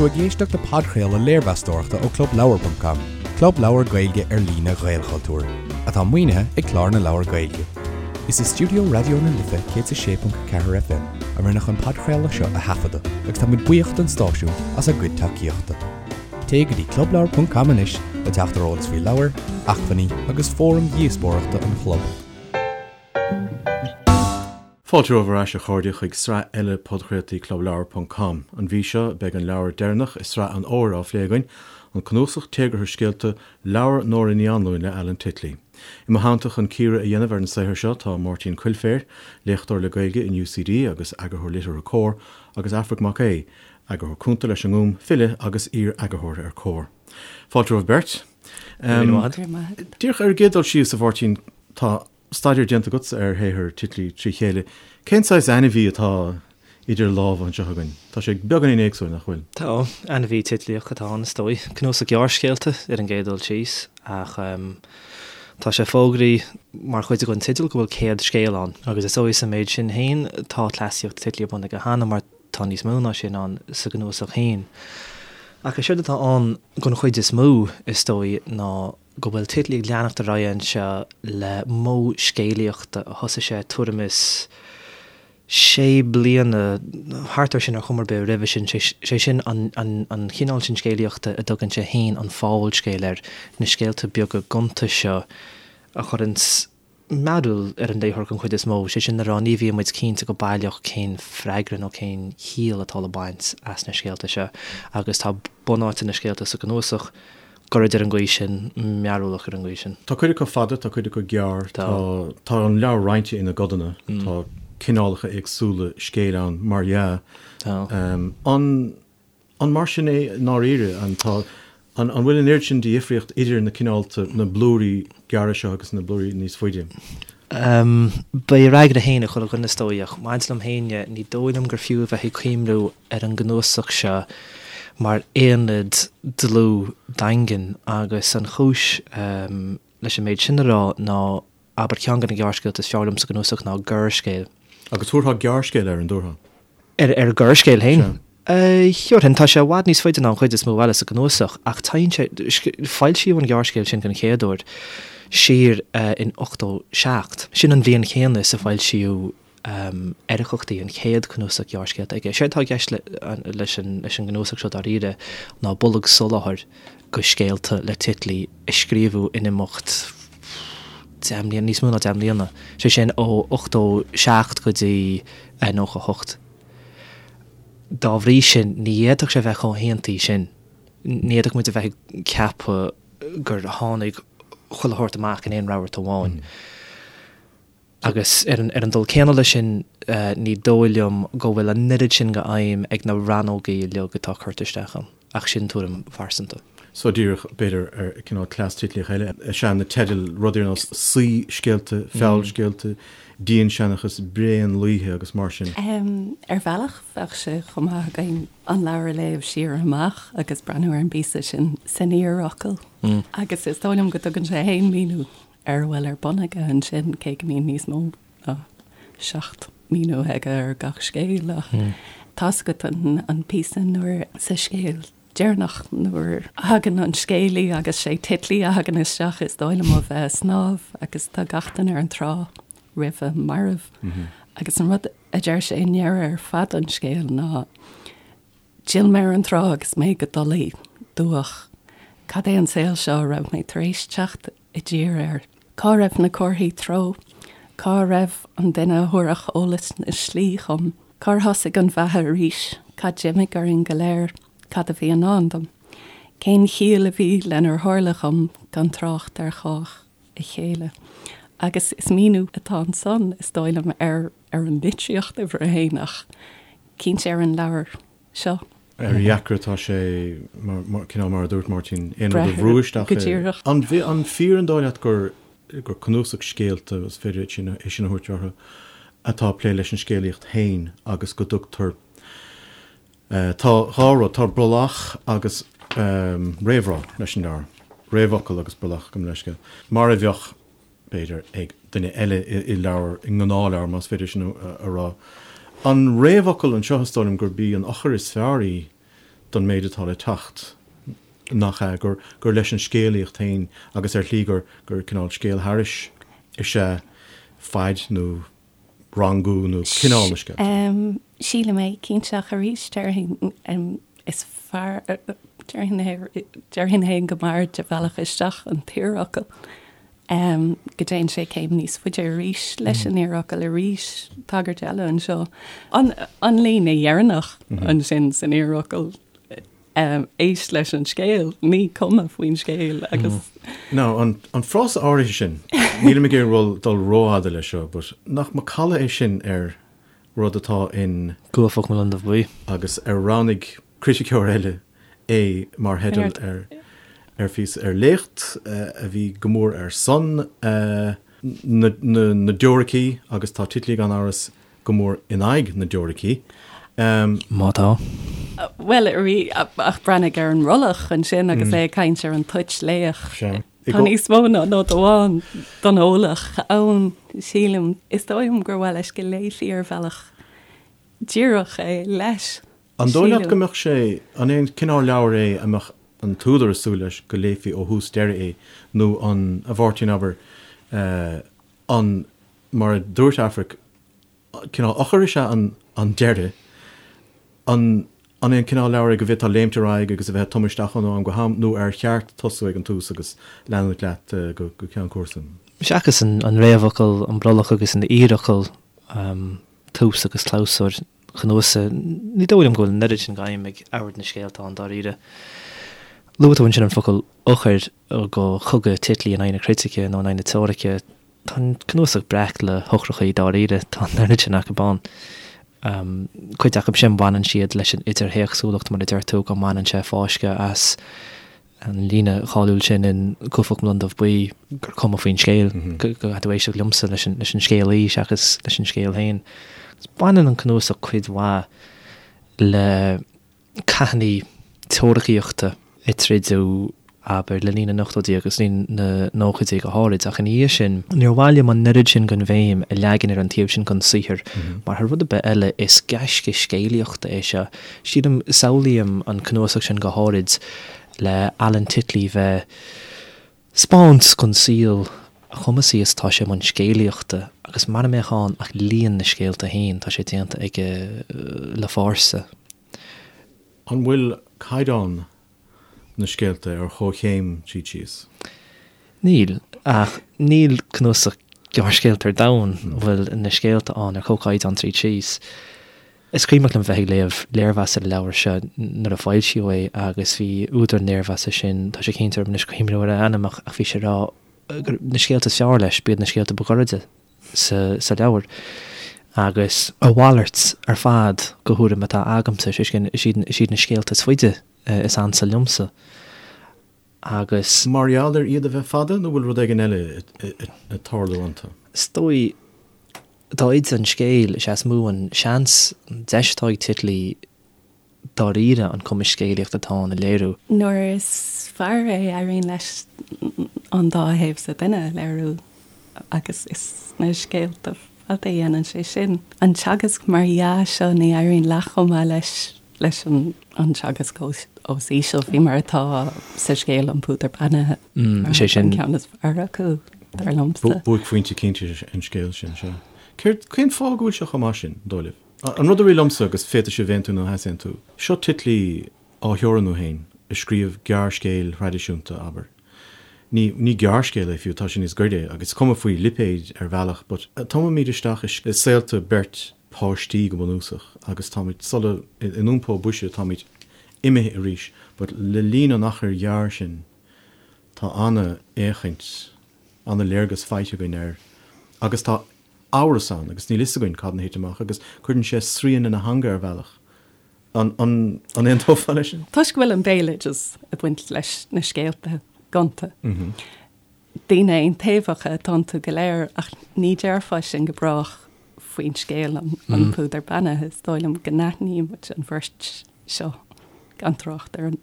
tú ag éisteacht le podchraoladh léirmheastóireachta ó ClubLeabhar.com, club leabhar Gaeilge ar líne Ghaelchultúir, atá maoinithe ag Clár na Leabhar Gaeilge. Is i stiúideo Raidió na Life 106.4 FM a rinneadh an podchraoladh seo a thaifeadadh agus tá muid buíoch don stáisiún as a gcuid tacaíochta. Téigh go dtí clubleabhar.com anois le teacht ar eolas faoi leabhair, acmhainní agus fóraim dhíospóireachta an chlub. Fáilte romhaibh ar ais, a chairde, chuig sraith eile podchraoltaí Clubleabhar ponc com. An mhí seo, beidh an leabhar deireanach i sraith an fhómhair á phlé againn, an cnuasach téagartha scéalta, Leabhar Nóra Ní Anluain le Alan Titley. I mo theannta chun cíoradh a dhéanamh ar an saothar seo tá Máirtín Coilféir, léachtóir le Gaeilge in UCD agus eagarthóir liteartha Comhar, agus Aifric Mac Aodha, eagarthóir cúnta leis an nGúm, file agus iar-eagarthóir ar Comhar. Fáilte romhaibh beirt. Díreach ar an gcéad dul síos, a Mháirtín, tá staidéar déanta agatsa ar shaothar Titley trí chéile. Cén saghas ainmhí atá idir lámha anseo againn? Tá sé beagáinín éagsúil, nach bhfuil? Tá. Ainmhí Titlíoch atá ann, is dóigh. Cnuasach gearrscéalta ar an gcéad dul síos, ach tá sé fógraithe mar chuid den teideal go bhfuil 100 scéal ann, agus is dóigh sa méid sin féin tá cleasaíocht Titley ar bun aige cheana mar tá níos mó ná sin ann sa gcnuasach féin. Ach is éard atá ann den chuid is mó, is dóigh, ná go bhfuil Titley ag leanacht ar aghaidh anseo le modh scéalaíochta a thosaigh sé tuairim is sé bliana, thart air sin ar chuma ar bith, roimhe sin, sé sin an chineál sin scéalaíochta a dtugann sé féin an fabhalscéal air, na scéalta beaga gonta seo a chuireanns mearúil ar an léitheoir den chuid is mó, sé sin le rá ní bhíonn muid cinnte go baileach cén freagra nó cén chiall atá le baint as na scéalta seo agus tá bunáite na scéalta sa gcnuasach gairid ar an gcaoi sin, mearúlach ar an gcaoi sin. Tá cuid acu fada, tá cuid acu gearr, tá tá an leabhar roinnte ina gcodanna, tá cineálacha éagsúla scéil ann mar dhea. Tá. An. An mar sin é i ndáiríre? An tá, an bhfuil an oiread sin de dhifríocht idir na cineálta, na blúirí gearra seo agus na blúirí níos faide? Beidh a fhreagra féin ag chuile dhuine is dóigh, ach maidir liom féin dhe, ní dóigh liom gur fiú a bheith ag cuimhniú ar an gcnuasach seo mar aonad dlúth daingean agus an chúis leis an méid sin a rá ná, abair, ceann de na gearrscéalta is fearr liom sa gcnuasach ná Gearrscéal. Agus thabharfá gearrscéal air, an dtabharfá? Ar ar Ghearrscéal féin? Sea. Thabharfainn. Tá sé i bhfad níos faide ná an chuid is mó eile sa gcnuasach, ach téann sé, foilsíodh an gearrscéal sin den chéad uair siar in 87. Sin an bhliain chéanna is a foilsíodh Eiriceachtaí, an chéad chnuasach gearrscéalta aige. Séard atá i gceist leis an gcnuasach seo dáiríre ná bolg soláthair go scéalta le Titley a scríobhadh in imeacht 10 mbliana, níos mó ná 10 mbliana, sé sin ó 87 go dtí 98. Dá bhrí sin, ní fhéadfadh sé bheith chomh haontaithe sin. Ní fhéadfadh muid a bheith ag ceapadh gur tháinig chuile shórt amach in aon rabharta amháin. Agus ar an dul céanna leis sin, ní dóigh liom go bhfuil an oiread sin de fheidhm ag na rannógaí uilig atá curtha isteach ann, ach sin tuairim phearsanta. So díreach, b'fhéidir, ar cineál cleas Titlíoch eile is ea na teidil, rudaí ar nós saoiscéalta, feallscéalta, dianseanchas, bréanlaoithe agus mar sin. Ar bhealach, bheadh sé chomh maith againn an leabhar a léamh siar amach agus breathnú ar an bpíosa sin san iarfhocal. Agus is dóigh liom go dtugann sé féin míniú ar a bhfuil ar bun aige ansin, cé go mbíonn níos mó ná 7 míniú aige ar gach scéal, ach tá's agat an píosa nuair sa scéal deireanach nuair a thagann an scéalaí agus sé Titley a thagann isteach is dóigh liom ó bheith ag snámh agus tá gach duine ar an trá roimhe marbh agus an rud a deir sé i ndeireadh ar fad an scéil ná D'fhill mé ar an trá agus mé go dolaí, dubhach. Cad é an saol seo a raibh mé tar éis teacht i dtír air? Cá raibh na comharthaí treo? Cá raibh an duine a thabharfadh eolas na slí dhom? Cár thosaigh an bheatha arís? Cad d'imigh orainn go léir? Cad a bhí i ndán dom? Cén chiall a bhí lenar tharla dhom, gan trácht ar chách a chéile? Agus is míniú atá ansan, is dóigh liom, ar ar an litríocht uimhir a haon ach cinnte ar an leabhar seo. Ar a dheacra atá sé, cineál mar a dúirt Máirtín, aon rud a bhrú isteach Go díreach. An fíor an dóigh leat gur gur cnuasach scéalta, is féidir é sin a thabhairt orthu, atá ag plé leis an scéalaíocht féin agus go dtugtar, tá dhá rud, tá brollach agus réamhrá leis an leabhar, réamhfhocal agus brollach, gabh mo leithscéal, mar a bheadh b'fhéidir, ag duine eile i leabhar, i ngnáthleabhar, más féidir sin a rá. An réamhfhocal anseo, is dóigh liom gurb í an eochair is fearr í don méid atá le teacht, nach ea, gur, gur leis an scéalaíocht féin agus ar shlí gur, gur cineál scéal thairis is ea faid nó rangú nó cineál na scéalta. Sílim é, cinnte, ach arís déarfainn is fearr, déarfainn féin go mb'fhearr de bhealach isteach an t-iarfhocal, go dtéann sé céim níos faide arís leis an iarfhocal arís, tagairt eile anseo. An líne dheireanach ansin san iarfhocal, éist leis an scéal, ní cuma faoin scéal agus. Now, an frása áirithe sin, nílim ag iarraidh dul rófhada leis seo, but nach macalla é sin ar rud atá in. Cuaifeach mo Londubh Buí. Agus ar roghnaigh criticeoir eile é mar theideal ar ar phíosa, ar léacht a bhí go mór ar son na dteoiricí agus tá Titley gan amhras go mór in aghaidh na dteoiricí. Má tá. Bhuel, ach breathnaigh ar an mbrollach ansin agus é ag caint ar an toit laoch. Tá níos mó ná nod amháin don eolach ann, sílim. Is dóigh liom gur mhaith leis go léifí ar bhealach díreach é leis. An dóigh leat go mbeadh sé, an é an cineál leabhair é a mbeadh an t-údar ag súil leis go léifí ó thús deireadh é nó an, a Mháirtín, abair, an, mar a dúirt Aifric, cineál eochair is ea an deireadh. An an é an cineál leabhair é go bhféadfá léimt ar aghaidh agus a bheith ag tumadh isteach ann ó am go ham, nó ar cheart tosú ag an tús agus leanúint leat go ceann cúrsa? Seachas an réamhfhocal, an brollach agus an iarfhocal, tús agus clabhsúr an chnuasaigh, ní dóigh liom go bhfuil an oiread sin d'aidhm ag ord na scéalta ann dáiríre. Luaigh tú ansin an focal eochair do chogadh Titley in aghaidh na critice nó in aghaidh na teoirice. Tá an cnuasach breac le heochrachaí dáiríre, tá an oiread sin acu ann. Cuid acu sin baineann siad leis an idirthéacsúlacht mar a deir tú, go mbaineann sé fáisceadh as an líne cháiliúil sin in Cuaifeach mo Londubh Buí gur cuma faoin scéal, go gcaithfidh tú éisteacht liomsa leis an scéalaí seachas leis an scéal féin. Baineann an cnuasach cuid mhaith le cathanna teoiricíochta a troideadh, abair, le linn na n-ochtóidí agus linn na nóchaidí go háirid, ach ina dhiaidh sin, níor mhaith liom an oiread sin den bhéim a leagan ar an taobh sin den saothar, mar thar rud ar bith eile, is gaisce scéalaíochta é seo. Sílim, samhlaím an cnuasach sin go háirid le Alan Titley bheith 'spáint don saol a chumasaí is atá sé i mbun scéalaíochta agus mara mbeadh ann ach líon na scéalta féin, tá sé déanta aige le fórsa. An bhfuil caighdeán na scéalta ar chomhchéim tríd síos? Níl, ach níl cnuasach gearrscéalta ar domhan a bhfuil na scéalta ann ar chomhchaighdeán tríd síos. Is cuimhneach liom bheith ag léamh léirmheas ar an leabhar seo nuair a foilsíodh é agus bhí údar an léirmheasa sin, tá sé cinnte orm anois cuimhneamh ar a ainm ach bhí sé ag rá gur na scéalta is fearr leis, b'iad na scéalta ba ghairide sa leabhar. Agus a mhalairt ar fad de thuairim atá agamsa, sé sin, is iad na scéalta is faide is ansa liomsa agus. Mar gheall ar iad a bheith fada nó bhfuil rud éigin eile ag tarlú iontu? Is dóigh, dá fhaide an scéal, is ea is mó an seans, an deis atá ag Titley dáiríre an cumas scéalaíochta atá ann a léiriú. Nuair is fearr é, éiríonn leis an dá thaobh sa duine a léiriú agus is sna scéalta fada a dhéanann sé sin. An teagasc mar dhea seo, ní éiríonn leath chomh maith leis leis an teagasc os íseal, faoi mar atá sa scéal An Púdar Beannaithe. Is é sin. An ceann is fearr acu, dar liomsa. Buaicphointe cinnte an scéal sin, sea. Céard, cén fáth go bhfuil sé chomh maith sin, dóigh libh? An rud a rith liomsa, agus féadfaidh sibh aontú nó easaontú, seo Titley á theorannú féin, ag scríobh gearrscéil thraidisiúnta, abair. Ní, ní gearrscéal é fiú, tá sé níos gaire, agus is cuma faoi lipéid ar bhealach, but tumaimid isteach i saolta beirt páistí go bunúsach, agus táimid sula, in iompó boise, táimid imithe arís, but le linn an achair ghearr sin, tá an-fhéachaint, an-léargas faighte againn air, agus tá amhras ann, agus níl fhios againn cad ina thit amach, agus cuireann sé srian lena theanga ar bhealach. An aontófá leis sin? Toisc go bhfuil an béaloideas ag baint leis na scéalta gonta. Daoine aontaobhacha atá iontu go léir ach ní déarfá sin go brách faoin scéal An Púdar Beannaithe. Is dóigh liom go n-aithníonn muid an bheirt seo gan trácht ar an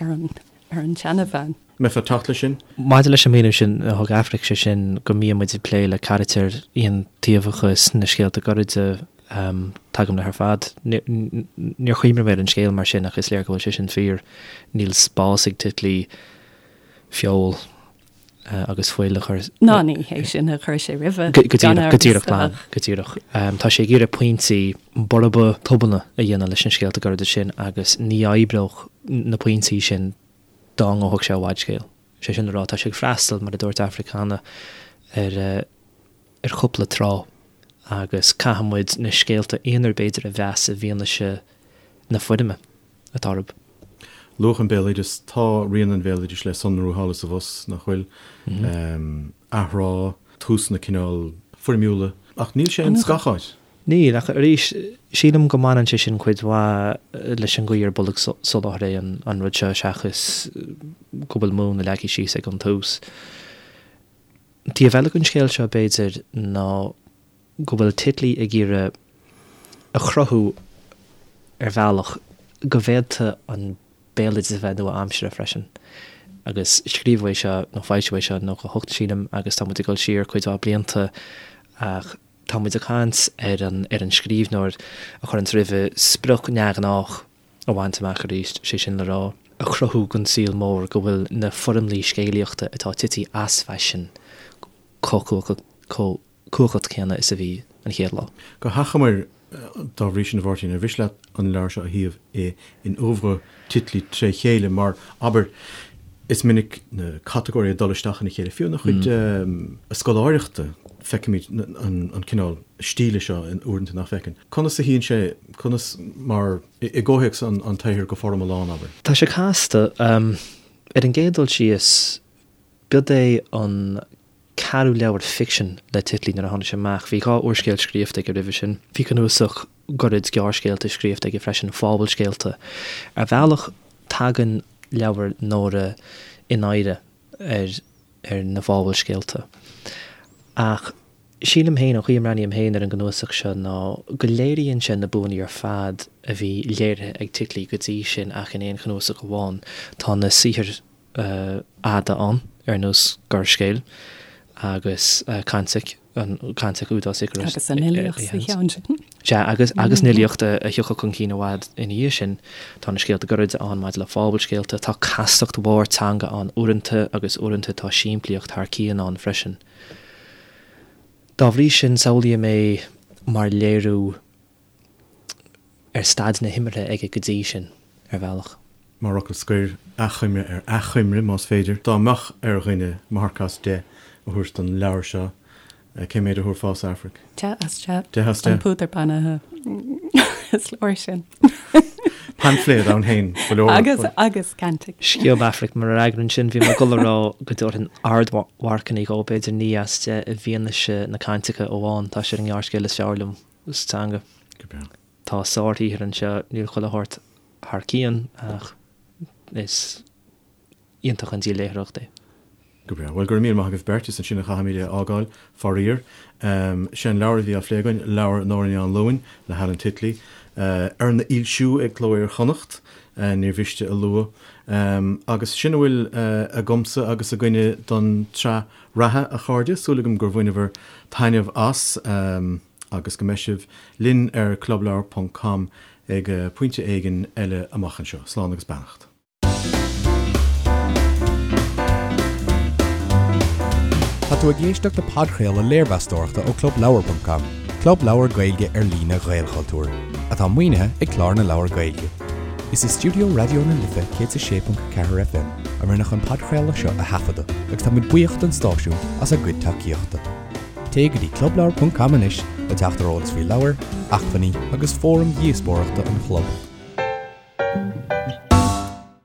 ar an tseanabhean. Mbeifeá ag teacht leis sin? Maidir leis an míniú sin a thug Aifric, sé sin go mbíonn muid ag plé le carachtair aontaobhacha sna scéalta gairide. Tagaim leis ar fad. Níor chuimhnigh mé ar an scéal mar sin ach is léir go bhfuil sé sin fíor. Níl spás ag Titley feoil agus fuil a chur. Ná ní hé sin a chuir sé roimhe. Go díreach, go díreach glan, go díreach. Tá sé ag iarraidh pointí borba tobanna a dhéanamh leis na scéalta gairide sin agus ní oibreodh na pointí sin dá ngabhfadh sé i bhfadscéal. Sé sin le rá, tá sé ag freastal, mar a dúirt Aifric cheana, ar ar chúpla trá agus caithfidh muid na scéalta aonair b'fhéidir a mheas i bhfianaise na foirme atá orthu. Luadh an béaloideas, tá rian an bhéaloidis le sonrú thall is abhus, nach bhfuil? Athrá, túsanna cineál foirmiúla, ach níl sé ins gach áit. Níl, ach arís, sílim go mbaineann sé sin cuid mhaith leis an gcaoi ar bolgsoláthar é an rud seo seachas go bhfuil múnla leagtha síos ag an tús. Taobh eile den scéal seo, b'fhéidir, ná go bhfuil Titley ag iarraidh a chruthú ar bhealach go bhféadfadh an béaloideas a bheith nua-aimseartha freisin. Agus scríobhadh é seo, nó foilsíodh é seo in 98, sílim, agus tá muid ag dul siar cuid mhaith blianta ach tá muid ag caint ar an ar an scríbhneoir a chuireanns roimhe sprioc neamhghnách a bhaint amach arís, sé sin le rá, a chruthú don saol mór go bhfuil na foirmlí scéalaíochta atá tite as faisean chomh cumhachtach céanna is a bhí an chéad lá. Go hachomair, dá bhrí sin, a Mháirtín, ar mhiste leat an leabhar seo a shuíomh in oeuvre Titley tré chéile, mar, abair, is minic na catagóirí ag dul isteach ina chéile, fiú ina chuid scoláireachta, feicimid an cineál stíle seo uaireanta nach bhfeiceann. Conas a shuíonn sé, conas mar, i gcomhthéacs an tsaothair go foriomlán, abair? Tá sé casta. Ar an gcéad dul síos, b'iod é an ceathrú leabhar ficsin le Titley nuair a tháinig sé amach. Bhí 2 úrscéal scríofa aige roimhe sin. Bhí cnuasach gairid gearrscéalta scríofa aige freisin, fabhalscéalta. Ar bhealach, tagann leabhar Nóra in oidhre ar ar na fabhalscéalta. Ach sílim féin, an chaoi a mbreathnaím féin ar an gcnuasach seo ná go léiríonn sé na buanna ar fad a bhí léirithe ag Titley go dtí sin ach in aon chnuasach amháin. Tá na saothair fhada ann, ar nós Gearrscéil agus Cantic, an Cantic úd as Icarus. Agus an fhilíocht sa cheann sin. Sea, agus agus an fhilíocht a thiocfadh chun cinn i bhfad ina dhiaidh sin. Tá na scéalta gairide ann maidir le fabhalscéalta, tá castacht mhór teanga ann uaireanta agus uaireanta tá simplíocht thar cionn ann freisin. Dá bhrí sin, samhlaím é mar léiriú ar staid na himeartha aige go dtí sin, ar bhealach. Mar fhocal scoir, achoimre ar achoimre, más féidir. Dá mbeadh ar dhuine marc as 10 a thabhairt don leabhar seo, cé méid a thabharfása, Aifric? 10 as 10. 10 as 10. An púdar beannaithe is leor sin. Paimfléad ann féin, go leor. Agus, agus cantic. Sciob Aifric mo fhreagra ansin, bhí mé ag dul a rá go dtabharfainn ardmharcanna dhó, b'fhéidir 9 as 10 i bhfianaise na caintice amháin, tá sé ar an ngearrscéal is fearr liom sa teanga. Go breá. Tá sárshaothar anseo, níl chuile shórt thar cionn ach is iontach an díol léitheoireachta é. Go breá. Bhuel, go raibh míle maith agaibh beirt. Is ansin a chaithfimid é a fhágáil, faraor. Sé an leabhar a bhí á phlé againn, leabhar Nóra Ní Anluain le hAlan Titley, arna fhoilsiú ag Cló Iar-Chonnacht, níor mhiste a lua. Agus sin a bhfuil agamsa agus againne don tsraith reatha, a chairde. Súil agam gur bhaineabhair taitneamh as agus go mbeidh sibh linn ar clubleabhar ponc com ag pointe éigin eile amach anseo. Slán agus beannacht. Tá tú ag éisteacht le podchraoladh léirmheastóireachta ó clubleabhar.com, club leabhar Gaeilge ar líne Ghaelchultúir, atá maoinithe ag Clár na Leabhar Gaeilge. Is i stiúideo Raidió na Life 106.4 FM a rinneadh an podchraoladh seo a thaifeadadh agus tá muid buíoch don stáisiún as a gcuid tacaíochta. Téigh go dtí clubleabhar.com anois le teacht ar eolas faoi leabhair, acmhainní agus fóraim dhíospóireachta an chlub.